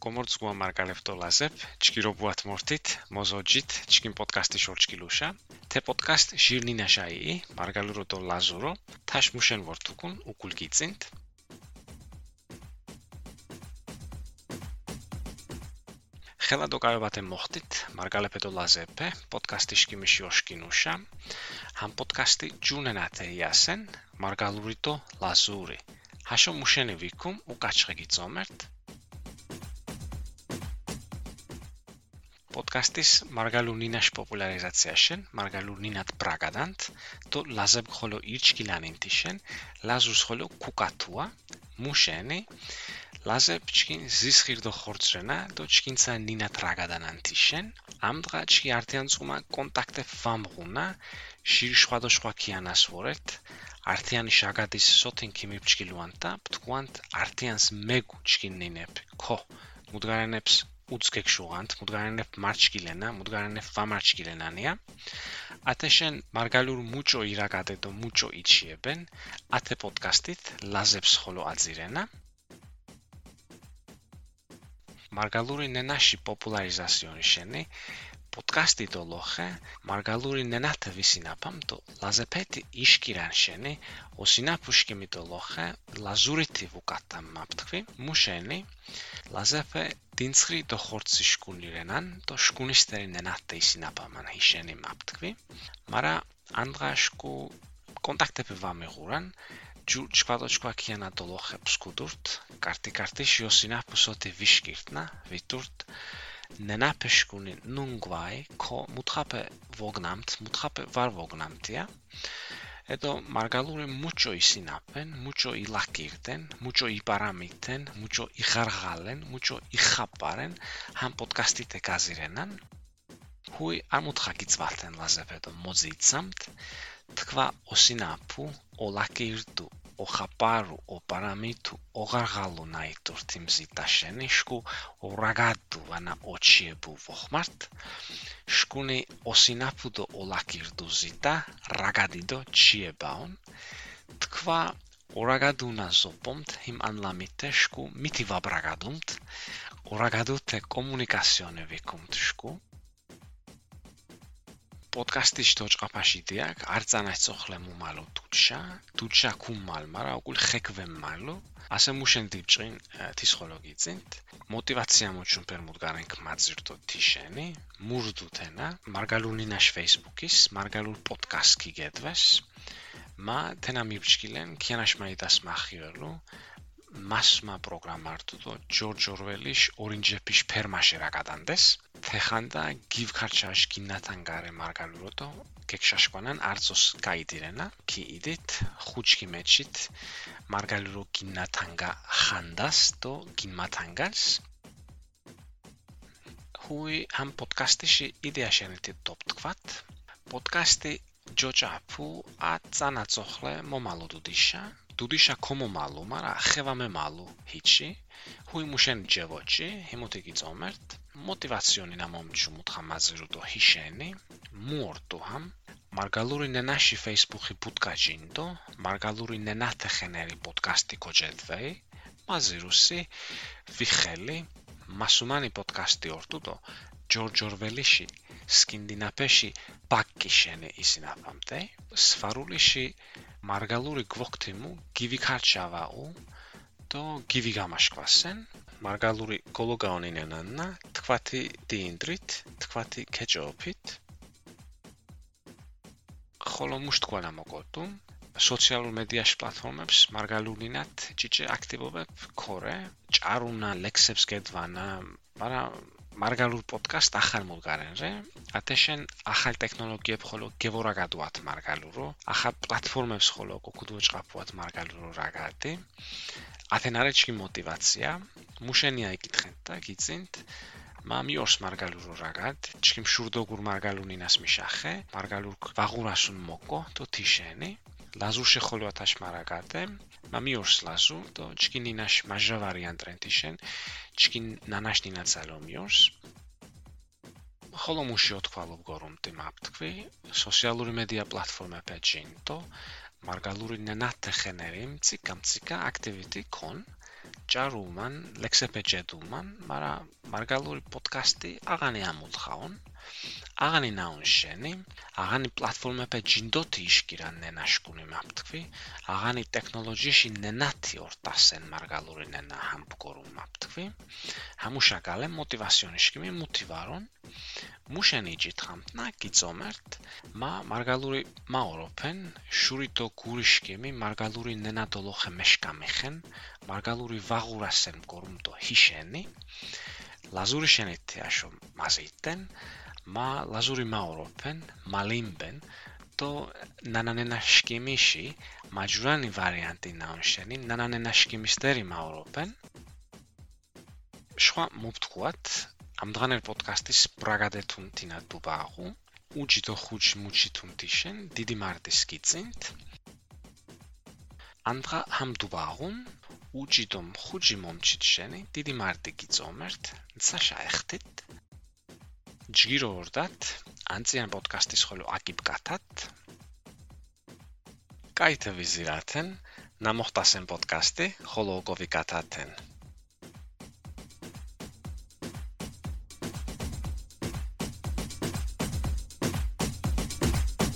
Գոմորձ գուամարգալեվտո լազեպ, չկիրոբուատ մորտիտ, մոզոջիտ, չկին պոդկաստի շորչկիլուշա, թե պոդկաստ շիրնի նաշայի, մարգալուրոտո լազուրո, թաշմուշեն որդուկուն ու կուլկիցինտ, Խելադոկայովատ է մոխտիտ, մարգալեպետո լազեպ է, պոդկաստի շկիմիշի օշկինուշա, համ պոդկաստի ջունենատ է յասեն, մարգալուրիտո լազուրի, հաշո մուշեն է վիկում ու կաչղեգի ծոմերտ, Պոդկաստիս մարգալուրնինաշ պոպուլարիզացիաշեն, մարգալուրնինատ պրագադանտ, то լազեպ խոլո իրչկիլանին տիշեն, լազուս խոլո կուկատուա, մուշենի, լազեպ չկին զիսխիրդո խորցրենա, то չկինցա նինատ ռագադանան տիշեն, ամդղա չկի արտյանցումա կոնտակտե վամղունա, շիրիշխվադոշխվա կիանաս որետ, արտյանի շագադիս սոտին կիմիպ չկիլուանտա, պտկուանտ արտյանս մեգու չկին նինեպ, քո, մուդգարանեպս ուծկեք շուղանտ, մուդգարանեպ մարչկիլենա, մուդգարանեպ վամարչկիլենանիա, ատեշեն մարգալուր մուճո իրագադետո մուճո իչիեբեն, ատե պոդկաստիտ լազեպս խոլո ածիրենա, մարգալուրի նենաշի պոպուլարիզասիոնի շենի, Պոդկաստի դոլոխը մարգալուրի նենաթը վիսինապամ տո լազեպետի իշկիրան շենի օսինապուշկիմի դոլոխը լազուրիթի վուկատամ մապտկվի մուշենի լազեպը դինցրի դո խորցի շկունիրենան տո շկունիստերի նենաթը իսինապաման հիշենի մապտկվի մարա անդղաշկու կոնտակտեպի վամեղուրան ջու չպատոչկվա կիանա դոլոխը պսկուդուրտ կարտի շիոսինապուսոտի վիշկիրտնա վիտուրտ Նենապեշկունի նունգվայ, քո մուտխապը վոգնամտ, մուտխապը վար վոգնամտիա, հետո մարգալուրը մուճո իսինապեն, մուճո իլակիրտեն, մուճո իպարամիտեն, մուճո իխարղալեն, մուճո իխապարեն, համ պոդկաստի տեկազիրենան, հույ ամուտխակից վալտեն լազեպետո մոզիցամտ, թկվա օսինապու, օլակիրտու, օխապարու, օպարամիտու, օղարղալու նայտուր թիմզի տաշենի, շկու օրագադու վանա օչիեբու վոխմարտ, շկունի օսինապուդո օլակիրդու զիտա, ռագադիդո չիեբաուն, թկվա օրագադունա զոպոմտ, հիմ անլամիտե շկու միթի վաբրագադումտ, օրագադու թե կոմունիկասիոնը վիկումտ շկու, Պոդկաստի շտոչ աղապաշի դիակ, արձանայցող լեմու մալու դուչա կում մալ մարա, օգուլ խեկվեմ մալու, ասեմ մուշեն դիպչին թիսխոլոգիցինտ, մոտիվացիա մոչուն պեր մուդգարենք մածիրտո թիշենի, մուրդու թենա, մարգալունինաշ ֆեյսբուքիս, մարգալուր պոդկաստքի գետվես, մա թենա միպչկիլեն, կյանաշ մայիտաս մախիրելու, Մասմա պրոգրամարտուտո Ջորջ Օրվելիշ օրինջեպիշ պերմաշերակադանդես թեխանդա գիվքարչաշ գիննաթանգարե մարգալուրոտո կեքշաշկոնան արծոս կայդիրենա քի իդիտ խուչքի մեջիտ մարգալուրո գիննաթանգա խանդաս տո գինմաթանգաս հույ համ պոդկաստիշի իդեաշենետի տոպտկվատ պոդկաստի ջոճապու ածանացողլե մոմալու Դուդիշա կոմո մալու մարա խևամե մալու հիչի, հույ մուշեն ջևոչի, հիմոտիկի ծոմերտ, մոտիվացիոնի նամոմչու մուտխամազիրուտո հիշենի, մուորտու համ, մարգալուրի նենաշի ֆեյսբուքի բուտկաջինդո, մարգալուրի նենաթը խեների պոդկաստի կոջետվեի, մազիրուսի, վիխելի, մասումանի պոդկաստի օրտուտո, Ջորջ Օրվելիշի, սկինդինապեշի բակկիշենի իսինապամտեի, սվարուլիշի Մարգալուրի գվոկթիմու գիվիքարչավաու տո գիվիգամաշկվասեն Մարգալուրի գոլոգաոնինենաննա թկվաթի դինդրիտ թկվաթի քեջոփիտ խոլոմուշտ կոլամոգոտում սոցիալ մեդիաշ պլատֆորմებს Մարգալուրինատ ճիճե ակտիվովებ քորե ճարունա լեքսեպս գետվանա մարա Մարգալուր պոդկաստ ախալ մուլգարենրե, ատեշեն ախալ տեխնոլոգիեբ խոլո գևորագադուատ մարգալուրո, ախալ պլատֆորմեբս խոլո կոկուդուչ կապուատ մարգալուրո ռագատի, աթենարեչկի մոտիվացիա, մուշենի այգիտխենտա, գիծինտ, մամի օրս մարգալուրո ռագատ, չկիմ շուրդոգուր մարգալունինաս միշախե, մարգալուր վաղուրասուն մոկո, տո թիշենի, լազուշե խոլո ատաշ մարագատ է, մամի օրս լազու, տո չկին նինաշ մաժա վարիանտ ռենտիշեն, չկին նանաշ նինացալոմ յորս, խոլո մուշի ոտքվալով գորում տիմապտկվի, սոսիալուրի մեդիա պլատֆորմը պեջին, տո մարգալուրի նենատ թխեներիմ, ծիկա ակտիվիտի կոն, ճարուման, լեքսեպեջետուման, մարգալուրի պոդքասթի աղանի ամուլ խաուն, աղանի նաուն շենի, աղանի պլատֆորմեպե ջինդոթի իշկիրան նենաշկունի մապտկվի, աղանի տեքնոլոջիշի նենաթի օրտասեն մարգալուրի նենա համպկորում մապտկվի, համուշակալ է մոտիվասյոն իշկիմի մուտիվարոն, մուշենի ջիթխամտնա գիծոմերտ, մարգալուրի մաորոպեն, շուրիտո գուրիշկիմի մարգալուրի նենադոլոխ է մեշկամիխեն, մարգալուրի վաղուրասեն կորումտո հիշենի, լազուրի շենիթի աշոմ մազիտեն, լազուրի մաորոպեն, մալիմբեն, то նանանենաշկիմիշի մաջուրանի վարիանտի նաունշենի նանանենաշկիմիստերի մաորոպեն շխա մուպտկուատ ամդղաներ պոդքաստիս պրագադետուն տինա դուբաղու ուջիտո խուջ մուջիտուն տիշեն դիդի մարտիսկիցինտ անդղա համ դուբաղուն ուջիտոմ խուջի մոմչիտ շենի դիդի մարտիկիցոմերտ նցա շայխտիտ Ջգիրո օրդատ, անցիան պոդքաստի սխոլու ակիպ կաթատ, կայթը վիզիրաթեն, նամոխտասեն պոդքաստի խոլոգովի կաթաթեն։